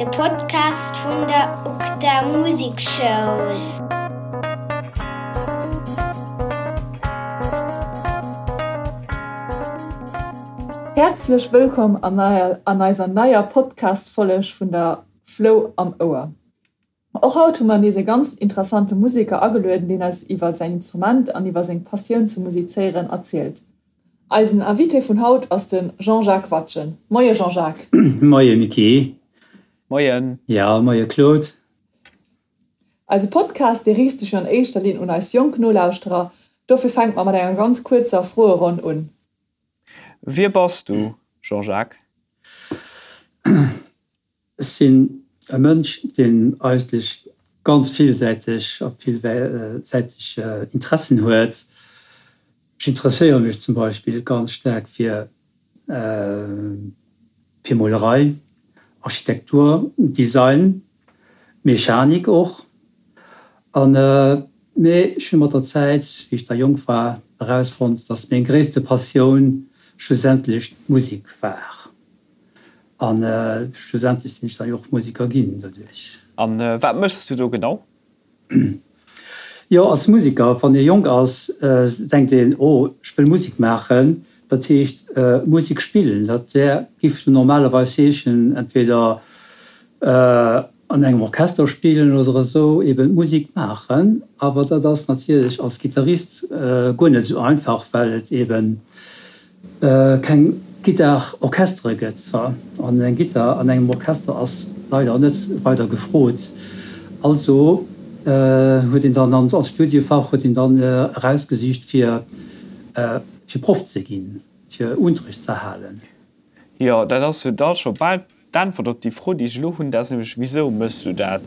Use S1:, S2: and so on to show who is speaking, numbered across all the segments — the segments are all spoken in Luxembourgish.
S1: De Podcast vun der UGDA Musekschoul.
S2: Häerzlech wëllkomm an eiser neier Podcast-Folleg vun der Flou am Ouer. Och haut hu mer nees e ganz interessante Museker agelueden, deen eis iwwer säin Instrument an iwwer seng Passioun zum Musizéieren erzielt. Eisen Invité vun haut ass de Jean-Jacques Watgen. Moie Jean-Jacques.
S3: Moie Micky.
S4: Moien.
S3: Jo, moie Claude.
S2: Eise Podcast, dee riicht sech jo an éischter Linn un eis jonk Nolauschterer, dofir fänke mer mat enger ganz kuerzer Froeronn un.
S4: Wie bass du, Jean-Jacques?
S3: Ech sinn e Mënsch, deen eigentlech ganz villsäiteg a villsäiteg Interessen huet. Ech interesséiere mech zum Beispill ganz staark fir fir Molerei, Architektur, Design, Mechanik och. An mee ech hu mat der Zäit, wéi ech da jonk war, erausfonnt, datt meng gréisste Passioun schlussendlech d'Musek war. An schlussendlech sinn ech dann jo och Museker ginn doduerch.
S4: An wat méchs du do genau?
S3: Jo, als Museker, wann ee jonk ass, denkt een, oh, ech wëll Musek maachen. Dat heescht Musek spillen. Dat wär, giff normalerweis heeschen, entweder an engem Orchester spillen oder esou, eben Musek maachen. Awer dat ass natierlech als Gittarist guer net esou einfach, well et eben keng Gittar-Orchestere gëtt, an eng Gittar an engem Orchester ass leider net weider gefrot. Also huet een dann als Studiefach huet een dann erausgesicht fir fir Proff ze ginn, fir Unterricht ze halen.
S4: Jo, dat ass jo da scho bal D'Äntwert op déi Fro, déi ech elo hunn, dat ass nämlech, Wisou méchs du dat?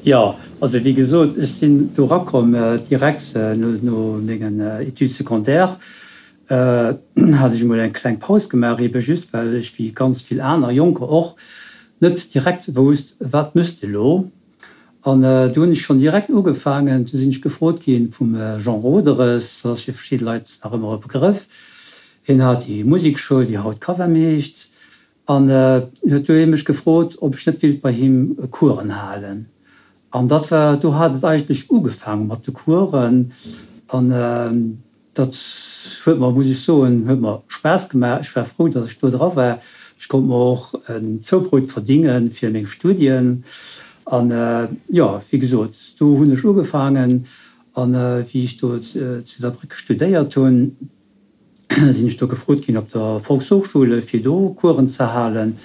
S3: Jo, also wéi gesot, ech sinn do erakomm direkt no mengen Études secondaires hat ech emol eng kleng Paus gemaach, ebe just well ech, wéi ganz vill aner Jonker och, net direkt wousst, wat méchs de elo? An do hunn ech schonn direkt ugefaangen, do sinn ech gefrot gi vum Jean Roederes, dat ass fir verschidde Leit nach ëmmer e Begrëff, hien hat déi Musekschoul, déi haut Cavem heescht, an huet du hie mech gefrot, ob ech net wéilt bei him Coursen halen. An dat war, do hat et eigentlech ugefaange mat de Coursen an Dat huet mer, muss ech soen, huet mer Spaass gemaach. Ech war frou, datt ech do dra war. Ech konnt mer och en Zoubrout verdinge fir meng Studien. An jo, wéi gesot, do hunn ech ugefaangen. An wéi ech do zu Saarbrécken studéiert hunn, sinn ech do gefrot ginn op der Volkshochschule fir do Coursen ze halen.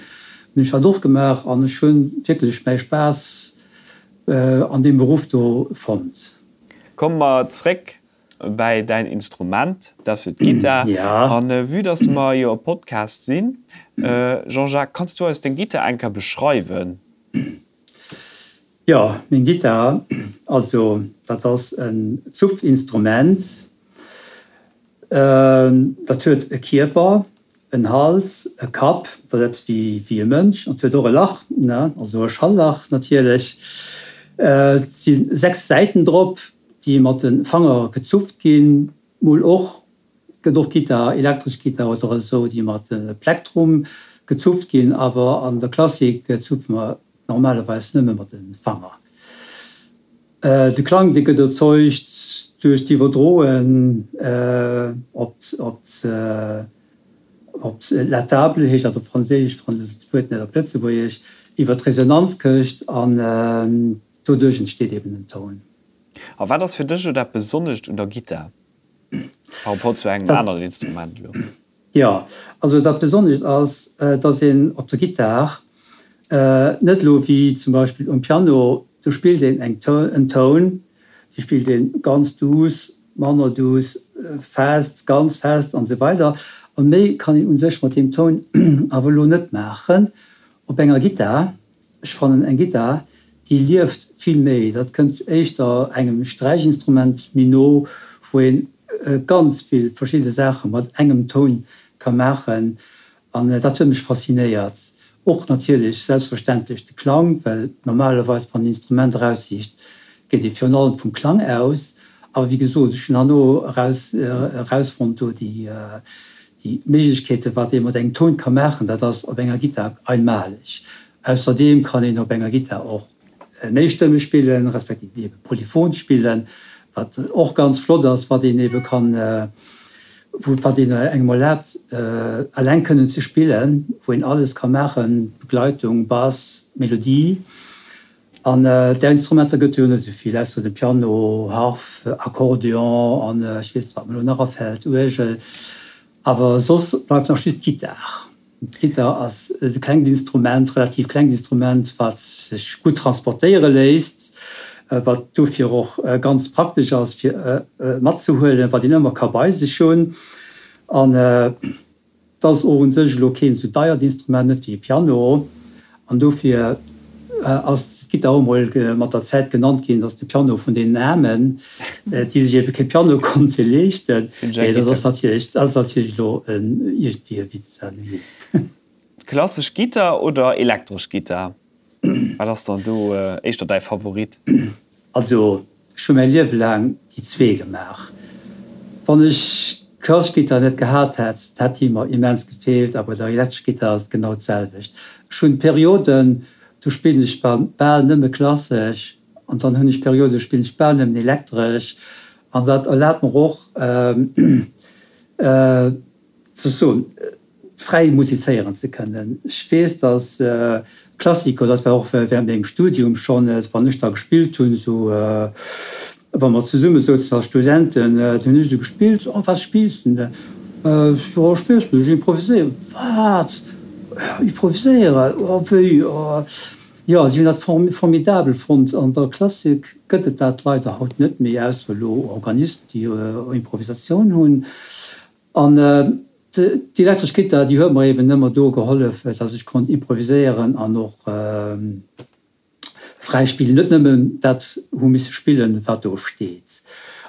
S3: Hunn ech dat och gemaach an ech hu wierklech mäi Spaass an deem Beruff do fonnt.
S4: Komme mer zréck bäi däin Instrument, dat ass jo d'Gittar. An vue dass mer jo e Podcast sinn, Jean-Jacques, kanns du eis deng Gittar eng Kéier beschreiwen?
S3: Jo, meng Gittar, also dat ass en Zupfinstrument. Dat huet e Kierper, en Hals, e Kapp, dat ass eppes wéi e Mënsch, an et huet och e Lach, also e Schalllach natierlech. Et si 6 Säiten drop, déi mat de Fanger gezupft ginn, mol och, gëtt och Gittar, elektresch Gittar oder esou, déi mat Plektrum gezupft ginn, awer an der Klassik zupfe mer normalerweis nëmme mat de Fanger. De Klang, dee gëtt erzeugt duerch d'Iwwerdroen op op la table, heescht dat op Franséisch, ech fannen d'Wuert net op Lëtzebuergesch, iwwer d'Resonanzkëscht an doduerch entsteet eben en Toun.
S4: A wat ass fir dech elo dat Besonnescht un der Gittar par rapport zu engem aneren Instrument elo?
S3: Jo, also dat Besonnescht ass, dass een op der Gittar net elo wéi zum Beispill um Piano, do spillt een eng en Toun, dee spillt ee ganz duuss, manner duuss, fest, ganz fest an esou weider. A méi kann een u sech mat deem Toun awer elo net maachen. Op enger Gittar Ech fannen eng Gittar déi lieft vill méi, dat kënnt éischter engem Sträichinstrument méi no, wou een ganz vill verschidde Saache mat engem Toun ka maachen an dat huet mech faszinéiert. Och natierlech selbstverständlech de Klang, well normalerweis wann een Instrument eraussicht, geet ee virun allem vum Klang aus. Awer wéi gesot, ech hunn herno eraus erausfonnt do déi. Déi Méiglechkeeten, wat ee mat engem Toun ka maachen, dat ass op enger Gittar einmaleg. Ausserdeem kann een op enger Gittar och méistëmmeg spillen, respektiv ebe polyphon spillen, wat och ganz flott ass, wat een ebe kann, wat een engem erlaabt, eleng kënnen ze spillen, wou een alles ka maachen, Begleitung, Bass, Melodie. An där Instrumenter gëtt et jo net esou vill, ausser de Piano, Harf, Akkordeon an ech weess net, wat mer elo nach afält, Uergel. Awer soss bleift nach just d'Gittar. D'Gittar ass e klengt Instrument, relativ klengt Instrument, wat sech gutt transportéiere léisst, wat dofir och ganz praktesch ass fir matzehuelen, wat een ëmmer ka bei sech hunn. An 't ass och un sech elo keen sou deiert Instrument, net wéi e Piano, an dofir ass d'Gittar och mol mat der Zäit genannt ginn, dass de Piano vun deenen Aarmen, déi sech ebe kee Piano konnte leeschten. Mee dat ass natierlech, dat ass natierlech elo iergendwéi e Witz.
S4: Klassesch Gittar oder elektresch Gittar? Wat ass dann do éischter däi Favorit?
S3: Also ech hu mäi Liewe laang déi zwee gemaach. Wann ech d'klassesch Gittar net gehat hätt, hätt déi mer immens gefeelt a bei der elektrescher Gittar ass et genau d'selwecht. Ech hunn Perioden, do spillen ech bal nëmme klassesch an dann hunn ech Perioden, do spillen ech bal nëmmen elektresch an dat erlaabt mer och ze soen, fräi musizéieren ze kënnen. Ech weess, dass Klassiker, dat war och während mengem Studium schonn, wann ech da gespillt hunn, esou wa mer zesumme souzen als Studenten, da hunn ech esou gespillt, Oh, was spielst du denn? Jo, ech weess net, ech improviséieren. Wat? Improviséieren? Oh, wéi? Oh. Jo, si hunn dat formidabel fonnt. An der Klassik gëtt et dat leider haut net méi, ausser elo Organisten, déi Improvisatioun hunn. An déi elektresch Gittar, déi huet mer eben ëmmer do gehollef, dass ech konnt improviséieren an och fräi spillen, net nëmmen dat hu misse spillen, wat do steet.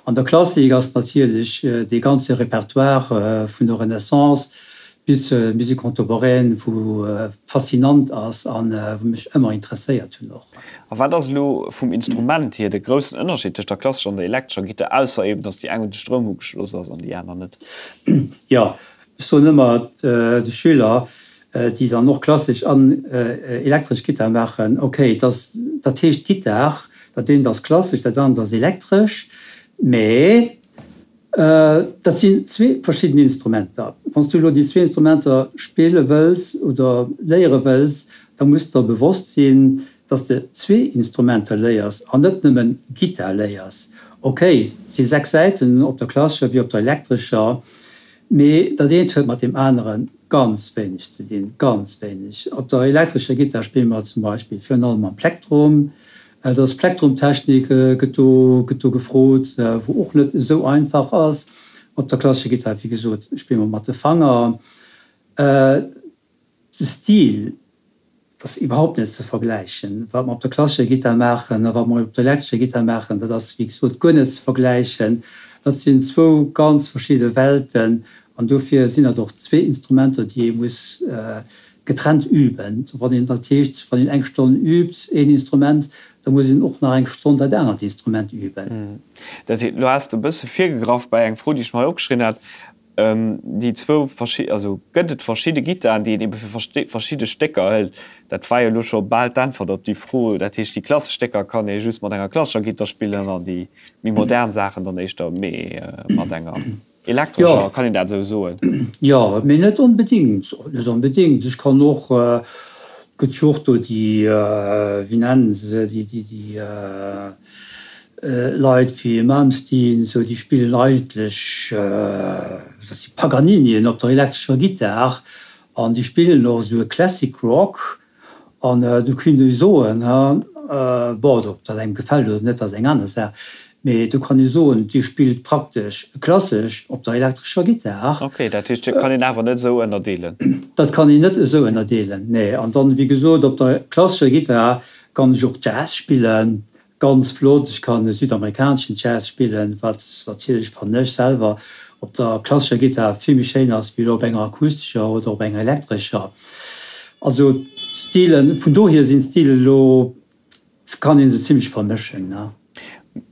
S3: An der Klassik ass natierlech dee ganze Repertoire vun der Renaissance bis zur Musique contemporaine, wou faszinant ass an wou mech ëmmer interesséiert hunn och.
S4: A wat ass elo vum Instrument hier de groussen Ënnerscheed tëscht der klassescher an der elektrescher Gittar, ausser eben, dass déi eng un de Stroum ugeschloss ass an déi aner net?
S3: Jo, ech soen ëmmer de Schüler, déi dann och klassesch an elektresch Gittar maachen, ok, dat heescht Gittar, dat eent ass klassesch, dat anert ass elektresch, mä Dat sinn zwee verschidden Instrumenter. Wann s du elo déi zwee Instrumenter spille wëlls oder léiere wëlls, da muss der bewosst sinn, dass s de zwee Instrumenter léiers an net nëmmen Gittar léiers. Ok, et si 6 Säiten op der klassescher wéi op der elektrescher, mee dat eent huet mat deem anere ganz wéineg ze dinn, ganz wéineg. Op der elektrescher Gittar spille mer zum Beispill virun allem mam Plektrum. Et ass Plektrumtechnik gëtt do gëtt do gefrot, wou och net esou einfach ass. Op der klassescher Gittar, wéi gesot, spille mer mat de Fanger. De Stil ass iwwerhaupt net ze vergläichen. Wat mer op der klassescher Gittar maachen a wat mer op der elektrescher Gittar maachen, dat ass, wéi gesot, guer net ze vergläichen. Dat sinn zwou ganz verschidde Welten an dofir sinn dat och zwee Instrumenter, déi ee muss Getrennt üben. Wann een, dat heescht, wann een eng Stonn übt een Instrument, da muss een och nach eng Stonn dat anert Instrument üben.
S4: Dat heescht, elo has de e bësse virgegraff bei eng Fro, déi ech mer hei opgeschriwwen hat, déi zwou verschi-, also gëtt et verschidde Gittaren, déi een ebe fir verschidde Stécker hëlt? Dat war jo elo scho bal d'Äntwert op déi Fro. Dat heescht, déi klassesch Stécker kann ee just mat enger klassescher Gittar spillen an déi méi modern Saachen dann éischter méi mat enger. Elektrescher, kann een dat esou soen?
S3: Jo, mee net onbedingt, net onbedingt. Ech kann och, et gëtt jo och do déi, wéi nennen se se, déi, déi, déi Leit wéi Malmsteen esou, déi spillen eigentlech, dat si Paganinien op der elektrescher Gittar an déi spillen och esou e Classic Rock. An do kéint ee soen, bon, ob dat engem gefält oder net, ass eng aner Saach, mee do kann ee soen, Dir spillt praktesch klassesch op der elektrescher Gittar.
S4: Ok, dat heescht, dat kann een awer net esou ënnerdeelen?
S3: Dat kann een net esou ënnerdeelen, nee. An dann, wéi gesot, op der klassescher Gittar kann ech och Jazz spillen, Ganz flott, ech kann südamerikaneschen Jazz spillen, wat natierlech, fannen ech selwer, op der klassescher Gittar vill méi schéin ass wéi elo op enger akustescher oder op enger elektrescher. Also d'Stilen, vun dohier sinn d'Stilen elo, kann een se zimlech vermëschen, ne.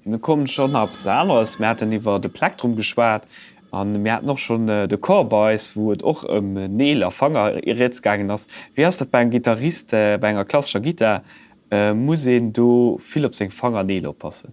S4: Mir kommen scho nach eppes aneres, mir haten iwwer de Plektrum geschwat. A mir haten och schonn de Chor bei eis, wou et och ëm Neel a Fanger rieds gaangen ass. Wéi ass dat bei engem Gittarist, bei enger klassescher Gittar? Muss een do vill op seng Fangerneel oppassen?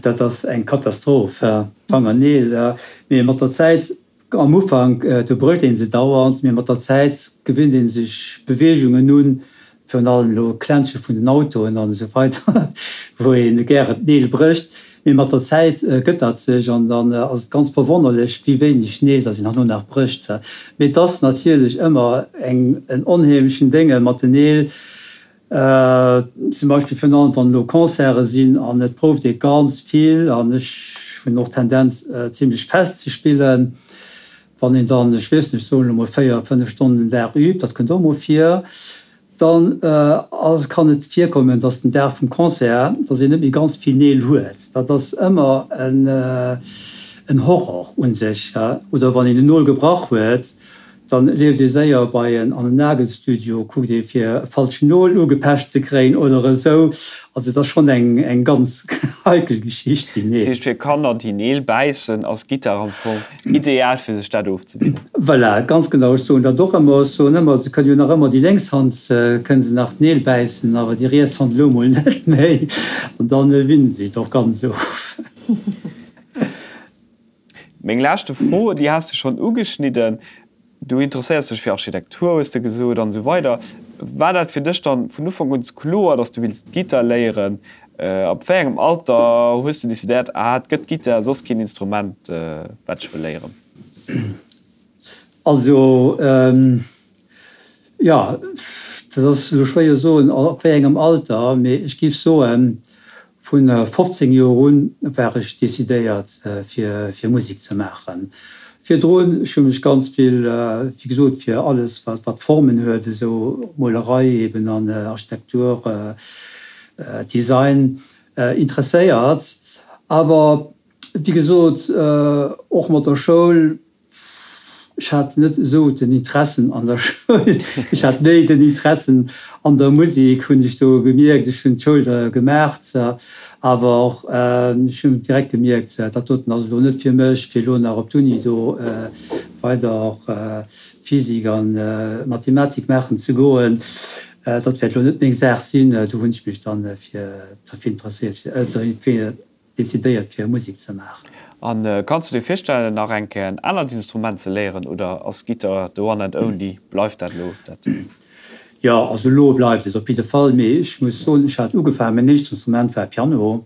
S3: Dat ass eng Katastroph, Fangerneel. Mee mat der Zäit, am Ufank, do brécht ee se dauernd, mee mat der Zäit gewinnt ee sech Beweegungen un, virun allem elo Klänzche vun den Autoen an esou weider, wou ee gären d'Neel brécht. Mee mat der Zäit gëtt dat sech an dann ass et ganz verwonnerlech, wéi wéineg Neel datt een herno nach brécht. Mee et ass natierlech ëmmer eng en onheemlechen Dénge mat den Neel. Zum Beispill virun allem wann elo Concerte sinn an et prouft ee ganz vill an ech hunn och d'Tendenz zimlech fest ze spillen. Wann een dann, ech weess net, ech soen elo mol 4, 5 Stonnen den Dag übt, dat kënnt och mol vir, dann ass, kann et virkommen, dass den Dag vum Concert, dass een net méi ganz vill Neel huet. Dat ass ëmmer en Horror u sech. Oder wann een en Nol gebrach huet, Dann leeft ee séier bei en an en Nagelstudio, kuckt ee fir e falschen Nol ugepecht ze kréien oder esou. Also et ass schonn eng eng ganz heikel Geschicht, déi
S4: Neel. Dat heescht fir Kanner déi Neel bäissen ass Gittar am Fong ideal fir sech dat ofzewinnen.
S3: Voilà, ganz genau. Ech soen dat och ëmmer. Ech soen ëmmer, se kënnen jo nach ëmmer déi lénks Hand kënne se nach d'Neel bäissen, awer déi riets Hand elo mol net méi. An dann winnen se et och ganz of.
S4: Meng leschte Fro, déi has de schonn ugeschnidden, Du interesséiers dech fir Architektur, hues de gesot, an esou weider. War dat fir dech dann vun Ufank un kloer, dass du wills Gittar léieren? Ab wéi engem Alter hues de decidéiert, ah, et gëtt Gittar, soss keen Instrument, wat ech wëll léieren?
S3: Also, jo, dat ass elo schwéier soen, ab wéi engem Alter, mee ech géif soen, Vu 15 Joer un war ech decidéiert fir fir Musek ze maachen. Virdrun, ech hu mech ganz vill, wéi gesot, fir alles wat wat Formen huet, esou Molerei eben an Architektur, Design interesséiert. Awer wéi gesot, och mat der Schoul Ech hat net esou den Interessen an der Schoul, ech hat méi den Interessen an der Musik, hunn ech do gemierkt. Ech hunn d'Schoul da gemaach, awer och ech hunn direkt gemierkt, dat doten ass elo net fir mech, fir elo nach op d'Uni do weider Physik a Mathematik maachen ze goen. Dat wäert elo net meng Saach sinn. Do hunn ech mech dann fir derfir interesséiert, fir decidéiert fir Musek ze maachen.
S4: A kanns du dir virstellen nach eng Kéier en anert Instrument ze léieren oder ass Gittar the one and only, bleift dat elo dat?
S3: Jo, also elo bleift et op jidde Fall, mee ech muss soen, ech hat ugefaangen, mäin éischt Instrument war Piano.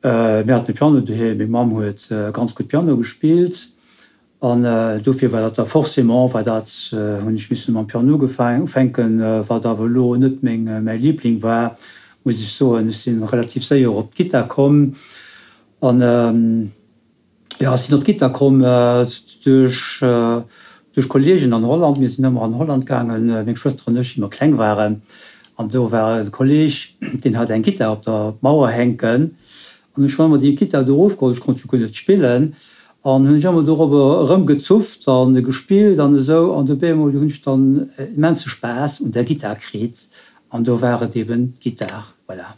S3: Mir haten e Piano doheem, meng Mamm huet ganz gutt Piano gespillt An dofir war dat da forcément, war dat, hunn ech missen mam Piano ufänken, wat awer elo net meng, mäi Liebling war, muss ech soen. Ech si relativ séier op d'Gittar komm an, jo, ech sinn op d'Gittar komm duerch, duerch Kolleegen an Holland. Mir sinn ëmmer an Holland gaangen, meng Schwëster an ech, wéi mer kleng waren. An do war e Kolleeg, deen hat eng Gittar op der Mauer hänken. An ech hunn ëmmer déi Gittar do erofgeholl, ech konnt jo guer net spillen, An hunn ech ëmmer dorobber erëmgezupft an gespillt an esou. An dobäi emol hunn ech dann immense Spaass un der Gittar kritt. An do war et eben d'Gittar, voilà.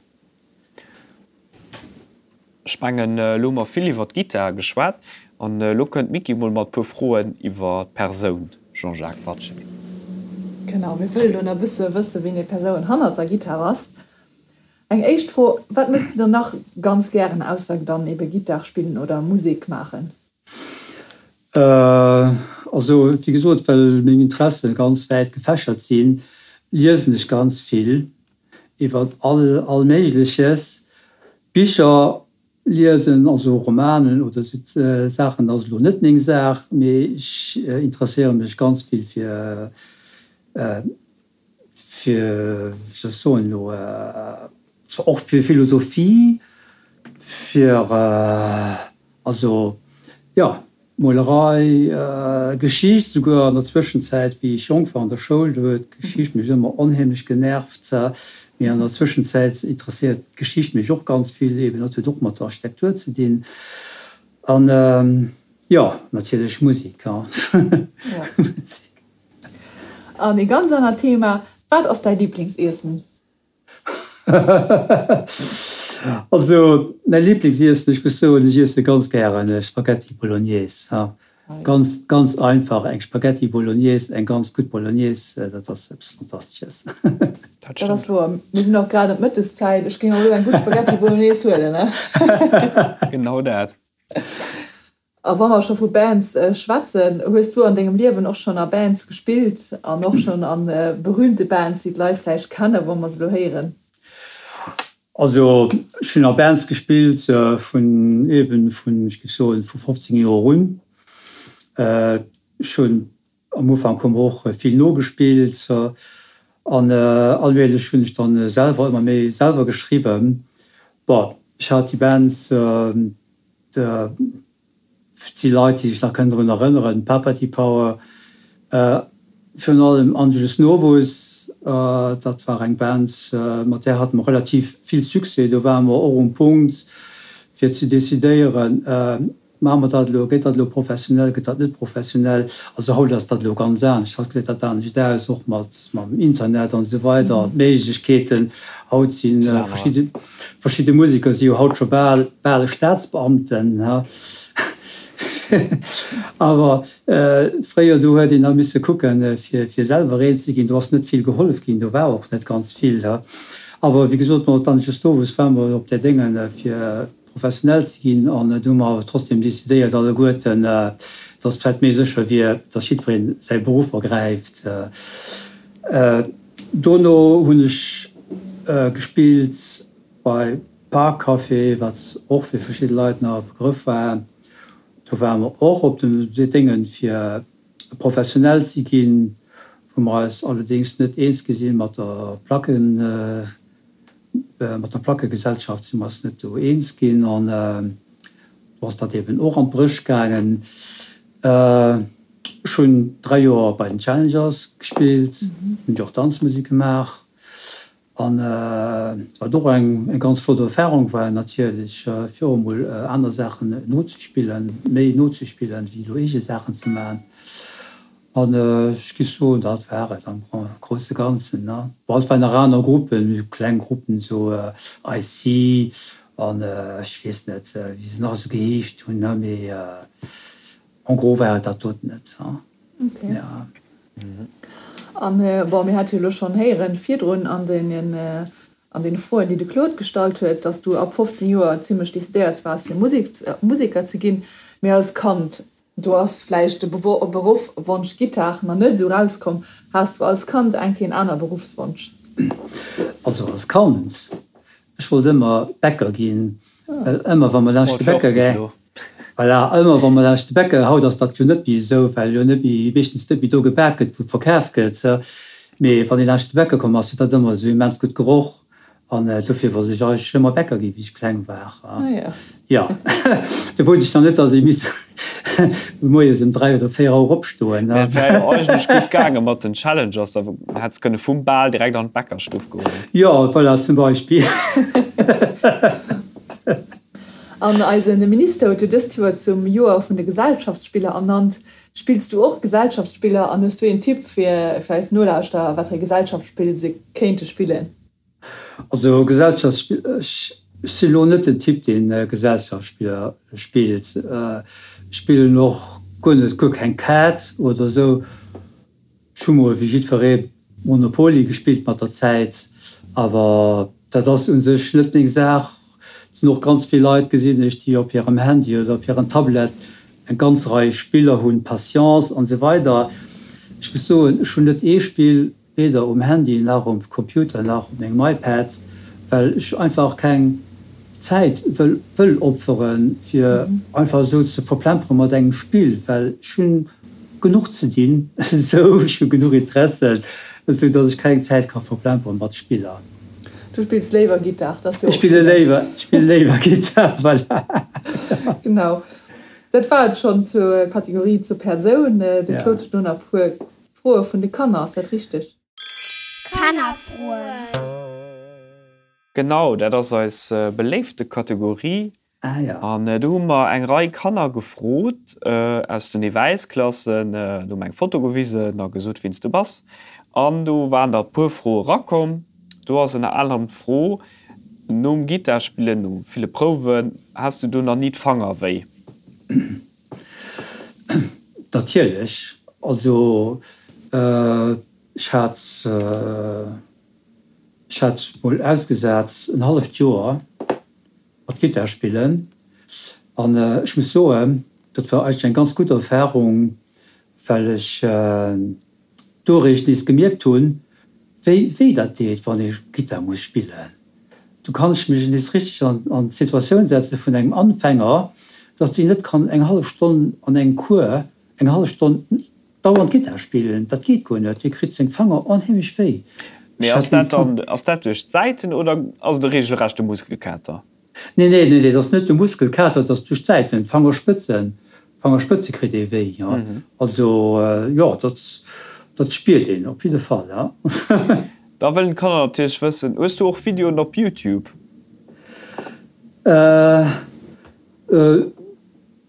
S4: Ech mengen, elo hu mer vill iwwer d'Gittar geschwat. An elo kënnt d'Micky mol mat puer Froen iwwer d'Persoun Jean-Jacques Watsché.
S2: Genau, mir wëllen elo nach e bësse wëssen, wien déi Persoun hannert der Gittar ass. Eng éischt Fro, Wat méchs du dann nach ganz gären ausser dann ebe Gittar spillen oder Musek maachen?
S3: Also wéi gesot, well meng Interesse ganz wäit gefächert sinn, liesen ech ganz vill iwwer all all Méigleches. Bicher liesen, also Romanen oder sou Saachen ass elo net meng Saach, mee ech interesséiere mech ganz vill fir fir, wéi soll ech soen elo, zwar och fir Philosophie, fir, also jo, Molerei, Geschicht, souguer an der Zwëschenzäit, wéi ech jonk war an der Schoul, do huet d'Geschicht mech ëmmer onheemlech genervt, mee an der Zwëschenzäit interesséiert d'Geschicht mech och ganz vill, eben dat huet och mat der Architektur ze dinn an, jo, natierlech Musek, jo.
S2: An ee ganz anert Thema, Wat ass däi Liblingsiessen?
S3: Also mäi Liblingsiessen, ech muss soen, ech iesse ganz gären Spaghetti Bolognese. Ganz, ganz einfach, eng Spaghetti Bolognese, eng ganz gutt Bolognese, dat ass eppes Fantastesches.
S2: Dat ass wouer. Mir sinn och grad an d'Mëtteszäit, ech géing och elo eng gutt Spaghetti Bolognese huelen, ne?
S4: Genau dat.
S2: A wa mer scho vu Bands schwätzen, hues du an dengem Liewen och schonn a Bands gespillt an och schonn a berühmte Bands, déi d'Leit vläicht kennen, wa mer se elo héieren?
S3: Also ech hunn a Bands gespillt vun eben vun, ech géif soen, vu 15 Joer un. Ech hunn am Ufank hu mer och vill nogespillt an allmählech hunn ech dann selwer ëmmer méi selwer geschriwwen. Bon, ech hat déi Bands, Et si Leit, déi sech nach kënnen drun erënneren, Papati Power, virun allem Angelus Novus, dat war eng Band, mat där hate mer relativ vill Succès. Do ware mer och um Punkt, fir ze decidéieren, Maache mer dat elo, gëtt dat elo professionell, gëtt dat net professionell? Also haut ass dat elo ganz anescht, haut gesäit dat anescht aus, och mat mam Internet an esou weider, d'Méiglechkeeten haut si verschidde. Verschidde Museker si jo haut scho bal bal Staatsbeamten, ha. Awer fréier, do huet een nach misse kucken, fir fir selwer eens ze ginn. Do ass net vill gehollef ginn, do war och net ganz vill, ha. Awer wéi gesot, mat Angelus Novus ware mer op där Déngen, fir professionell ze ginn. An do hu mer awer trotzdem decidéiert alleguerten, dass et vläicht méi sécher wier, dass jiddweree säi Beruff ergräift. Dono hunn ech gespillt bei Park Café, wat och fir verschidde Leit nach e Begrëff war. Do ware mer och op den Déngen fir professionell ze ginn, wou mer eis allerdéngs net eens gi sinn mat der Placken, mat der Plackegesellschaft si mer eis net do eens ginn an do ass dat eben och an d'Bréch gaangen. Ech hunn 3 Joer bei den Challengers gespillt, hunn jo och Danzmusek gemaach an wat och eng ganz flott Erfahrung war natierlech, fir och emol aner Saachen nozespillen, méi nozespillen wéi elo eege Saachen ze maachen. An ech géif soen, dat war et am grousse Ganzen. Bon, et waren nach aner Gruppen, esou kleng Gruppen, esou IC an ech weess net wéi se nach esou geheescht hunn, mee En gros war et dat doten net.
S2: Ok. An bon, mir hate jo elo schonn héieren virdrun an deenen, an deene Froen, déi de Claude gestallt huet, dass du ab 15 Joer zimlech decidéiert waars fir Musek, Museker ze ginn. Mee als Kand, do ass vläicht de Beruffwonsch Gittar nach net esou erauskomm. Has du als Kand eng Kéier en aner Beruffswonsch?
S3: Also als Kand, ech wollt ëmmer Bäcker ginn, well ëmmer wa mer laanscht de Bäcker gaang. Voilà, ëmmer wa mer laanscht de Bäcker, haut ass dat jo net méi esou, well jo net méi, meeschtens net méi do gebak gëtt, wou verkaf gëtt, mee wann ee laanscht de Bäcker komm ass, huet dat ëmmer esou immens gutt geroch an dofir wollt ech eigentlech ëmmer Bäcker ginn, wéi ech kleng war. Jo, do wousst ech nach net, dass ee misst moies ëm 3 oder 4 Auer opstoen.
S4: Mä et wär jo eigentlech gutt gaange mat den Challengers, da hätt s kënne vum Bal direkt an d'Bäckerstuff goen.
S3: Jo, voilà, zum Beispill.
S2: An eise Minister huet jo dëst Joer zum Joer vun de Gesellschaftsspiller ernannt. Spills du och Gesellschaftsspiller an hues du een Tipp fir fir eis Nolauschterer, wat fir Gesellschaftsspill se kéinte spillen?
S3: Also Gesellschaftsspiller, ech si lo net den Typ deen Gesellschaftsspiller spillt. Ech spillen och guer net, guer keng Kaart oder esou. Ech hu mol wéi jiddweree Monopoly gespillt mat der Zäit, awer dat ass u sech net meng Saach. Et sinn och ganz vill Leit, gesinn ech, déi op hirem Handy oder op hirem Tablet eng ganz Rei Spiller hunn, Patience an esou weider. Ech muss soen, ech hunn net ee Spill, weder um Handy nach um Computer nach op mengem iPad, well ech einfach keng Zäit wëll wëll opferen, fir einfach esou ze verplempere mat engem Spill, well ech hunn genuch ze dinn esou, ech hu genuch Interessen, esou datt ech keng Zäit ka verplempere mat Spiller.
S2: Du spills léiwer Gittar,
S3: dat ass jo och schéin. Ech spille léiwer Gittar, voilà.
S2: Genau, dat war et schonn zur Kategorie zur Persoun. De Claude huet elo nach e puer Froe vun de Kanner, ass dat richteg?
S1: Kannerfroen.
S4: Genau, dat ass eis beléifte Kategorie. An do hu mer eng Rei Kanner gefrot aus den Ewäisklassen. Do hu mer eng Foto gewisen a gesot, wien s du bass. An do waren der e puer Froe rakomm. Do ass ënner anerem d'Fro. Nom Gittar spillen, no ville Prouwen, has du do nach ni d'Fanger wéi?
S3: Natierlech. Also ech hat, ech hat mol ausgesat en halleft Joer mat Gittar spillen an ech muss soen, dat war eigentlech eng ganz gutt Erfarung, well ech do eréischt nees gemierkt hunn, wéi wéi dat deet, wann ee Gittar muss spillen. Do kann ech mech nees richteg an d'Situatioun setze vun engem Anfänger, dass deen net kann eng hallef Stonn an engem Cours eng hallef Stonn dauernd Gittar spillen. Dat geet guer net, dee kritt seng Fanger onheemlech wéi.
S4: Mee ass dat dann, ass dat duerch d'Säiten oder ass et e regelrechte Muskelkater?
S3: Nee, nee, nee, nee, dat ass net de Muskelkater, dat ass duerch d'Säiten, d'Fangerspëtzen, d'Fangerspëtze kritt ee wéi, jo. Also, jo, dat, dat spiert een op jidde Fall, ja.
S4: Da wëllen d'Kanner natierlech wëssen, Hues du och Videoen op Youtube?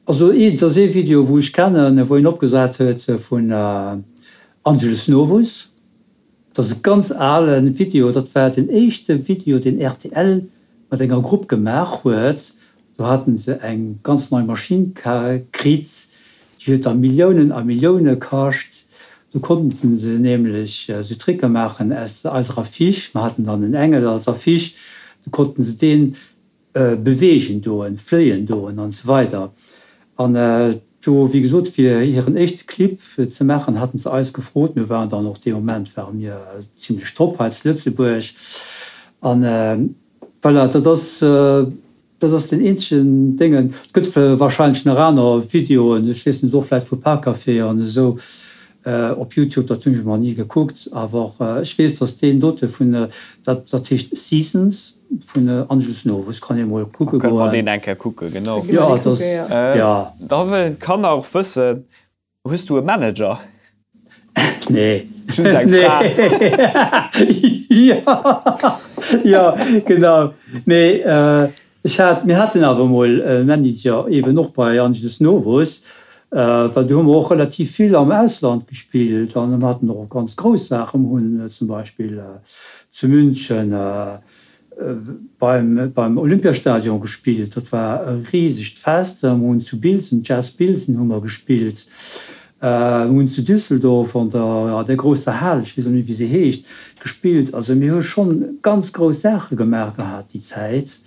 S3: Also, et ass ee Video, wou ech kennen, wou een opgesat huet vun Angelus Novus. Dat ass e ganz alen Video, dat war den éischte Video deen rtl mat enger Grupp gemaach huet. Do haten se eng ganz nei Maschinn kritt, déi huet da Milliounen a Millioune kascht. Do konnten se nämlech esou Tricke maachen aus eiser Affiche, mer haten dann en Engel als Affiche, do konnten se deen beweegen doen, fléien doen an esou weider. An do, wéi gesot, fir hiren éischte Clip ze maachen, haten se eis gefrot. Mir waren dann och dee Moment ware mir zimlech top hei zu Lëtzebuerg. An voilà, dat ass, dat ass den eenzegen Déngen. Et gëtt wahrscheinlech nach aner Videoen, ech weess net, och vläicht vu Parkcafé an esou, Op Youtube, dat hunn ech emol ni gekuckt, awer ech weess, dass deen dote vun, dat dat heescht Seasons vun Angelus Novus, kann ee mol kucke
S4: goen. Kënne mer deen eng Kéier kucken, genau.
S3: Jo, dat ass, jo.
S4: Da wëllen d'Kanner och wëssen, Hues du e Manager?
S3: Nee.
S4: Just eng Fra.
S3: Jo, jo, genau. Mee Ech hat, mir haten awer emol e Manager, eben och bei Angelus Novus, well do hu mer och relativ vill am Ausland gespillt an mir haten och ganz grouss Saachen. Mir hunn zum Beispill zu München beim, beim Olympiastadion gespillt, dat war e risegt Fest. Mir hunn zu Bilsen, Jazz Bilsen hu mer gespillt. Mir hunn zu Düsseldorf an der, an der grousser Hal, ech weess elo net wéi se heescht, gespillt. Also mir hu schonn ganz grouss Saache gemaach gehat déi Zäit.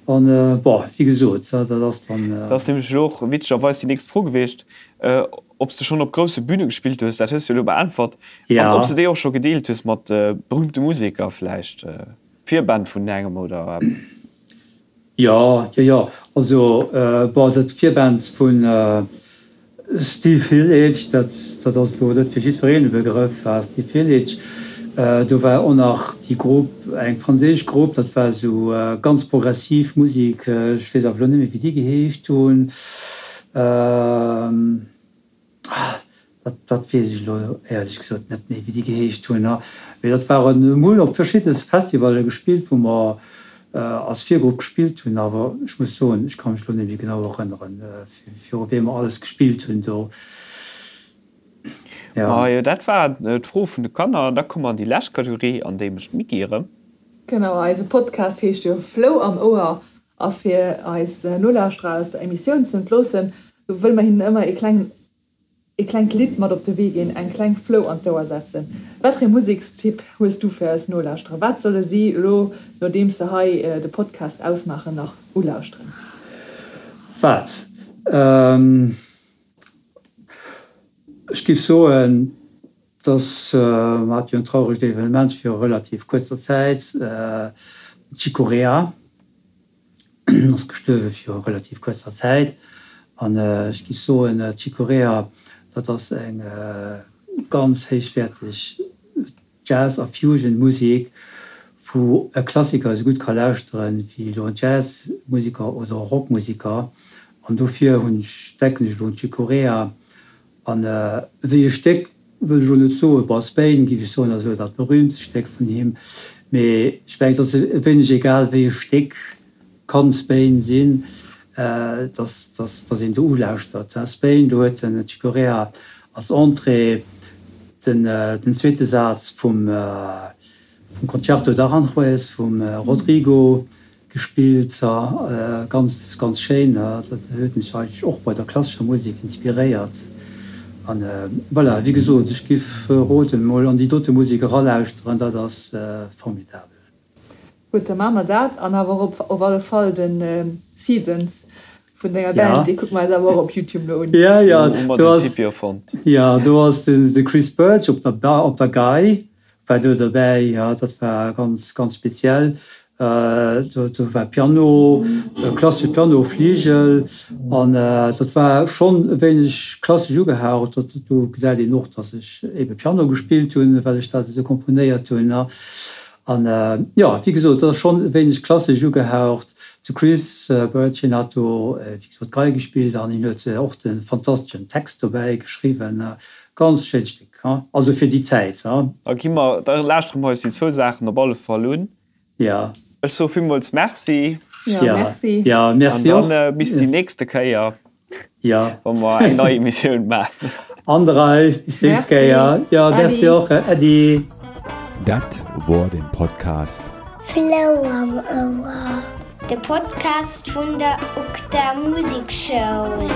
S3: An, bon, wéi gesot, dat ass dann.
S4: Dat ass nämlech elo och witzegerweis déi nächst Fro gewiescht, ob s de schonn op grousse Büne gespillt hues. Dat hues de elo beäntwert. An ob s de déi och scho gedeelt hues mat berühmte Museker vläicht, Virband vun engem oder eppes.
S3: Jo, jo, jo. Also, bon, dat Virband vun Steve Hillage, dat, dat ass elo net fir jiddwereen e Begrëff, war Steve Hillage. Do war och nach déi Grupp, eng franséisch Grupp, dat war esou ganz progressiv Musek, ech weess awer elo net méi, wéi déi geheescht hunn. Ah, dat, dat weess ech elo éierlech gesot net méi, wéi déi geheescht hunn. Mee dat waren, mir hunn op verschidde Festivalle gespillt, wou mer als Virgrupp gespillt hunn. Awer ech muss soen, ech ka mech elo net méi genau erënneren, viru wiem mer alles gespillt hunn do.
S4: Jo. Majo, dat war d'Fro vun de Kanner. Da komme mer an déi lescht Kategorie, an déi mécht d'Micky erëm.
S2: Genau, eise Podcast heescht jo Flou am Ouer. A fir eis Nolauschterer aus der Emissioun ze entloossen, wëlle mer hinnen ëmmer ee klengen, ee klengt Lidd mat op de Wee ginn, eng kleng Flou an d'Ouer setzen. Wat fir ee Musekstipp hues du fir eis Nolauschterer? Wat solle si elo, nodeems se hei de Podcast ausmaachen, nach ulauschteren?
S3: Wat? Ech géif soen, dass mer hate jo en trauregt Evenement viru relativ kuerzer Zäit, den Chick Corea ass gestuerwe viru relativ kuerzer Zäit. An ech géif soen, Chick Corea, dat ass eng ganz héichwäerteg Jazz a Fusion Musek, wou e Klassiker esou gutt ka lauschteren wéi elo en Jazz-Museker oder e Rock-Museker. An dofir hunn ech, denken ech elo un Chick Corea. An wéi e Stéck wëll ech elo net soen, bon, Spain géif ech soen ass elo dat berühmtst Stéck vun him, mee ech mengen et ass e wéineg egal wéi e Stéck kann Spain sinn, dass dass een do ulauschtert. Spain, do huet den Chick Corea als Entrée den den zweete Saz vum. vum Concerto d'Aranjuez vum Rodrigo gespillt. Ganz, ganz schéin. Dat huet mech eigentlech och bei der klassescher Musek inspiréiert. An voilà, wéi gesot, ech giff roden, mol an déi dote Musek eralauschteren, dat ass formidabel.
S2: Gutt, da maache mer dat. An awer och op alle Fall de Seasons vun denger Band, dee kucke mer eis awer och op Youtube elo un.
S3: Ja, ja, do ass, ja, do ass de Chris Birch op der, op der Gei war do derbäi. Ja, dat war ganz, ganz speziell. Do, do war Piano, klassesche Piano, Fligel an dat war schonn e wéineg klassesch ugehaucht. Dat, do gesäit een och, datt ech ebe Piano gespillt hunn, well ech dat esou komponéiert hunn. An jo, wéi gesot, dat ass schonn e wéineg klassesch ugehaucht. De Chris Birch, hien hat do, wéi gesot, Gei gespillt an hien huet och de fantasteschen Text dobäi geschriwwen. Ganz schéint Stéck, also fir déi Zäit.
S4: Da gi mer, da lauschtere mer eis déi zwou Saachen op alle Fall un.
S3: Jo.
S4: Ech soe villmools Merci.
S2: Jo, Merci.
S3: Jo, Merci
S4: och. An dann bis déi nächste Kéier.
S3: Jo.
S4: Wa mer eng nei Emissioun maachen.
S3: An der Rei, bis nächst Kéier. Jo, merci och. Äddi.
S5: Dat wor den Podcast.
S1: Flou am Ouer, de Podcast vun der UGDA Musekschoul.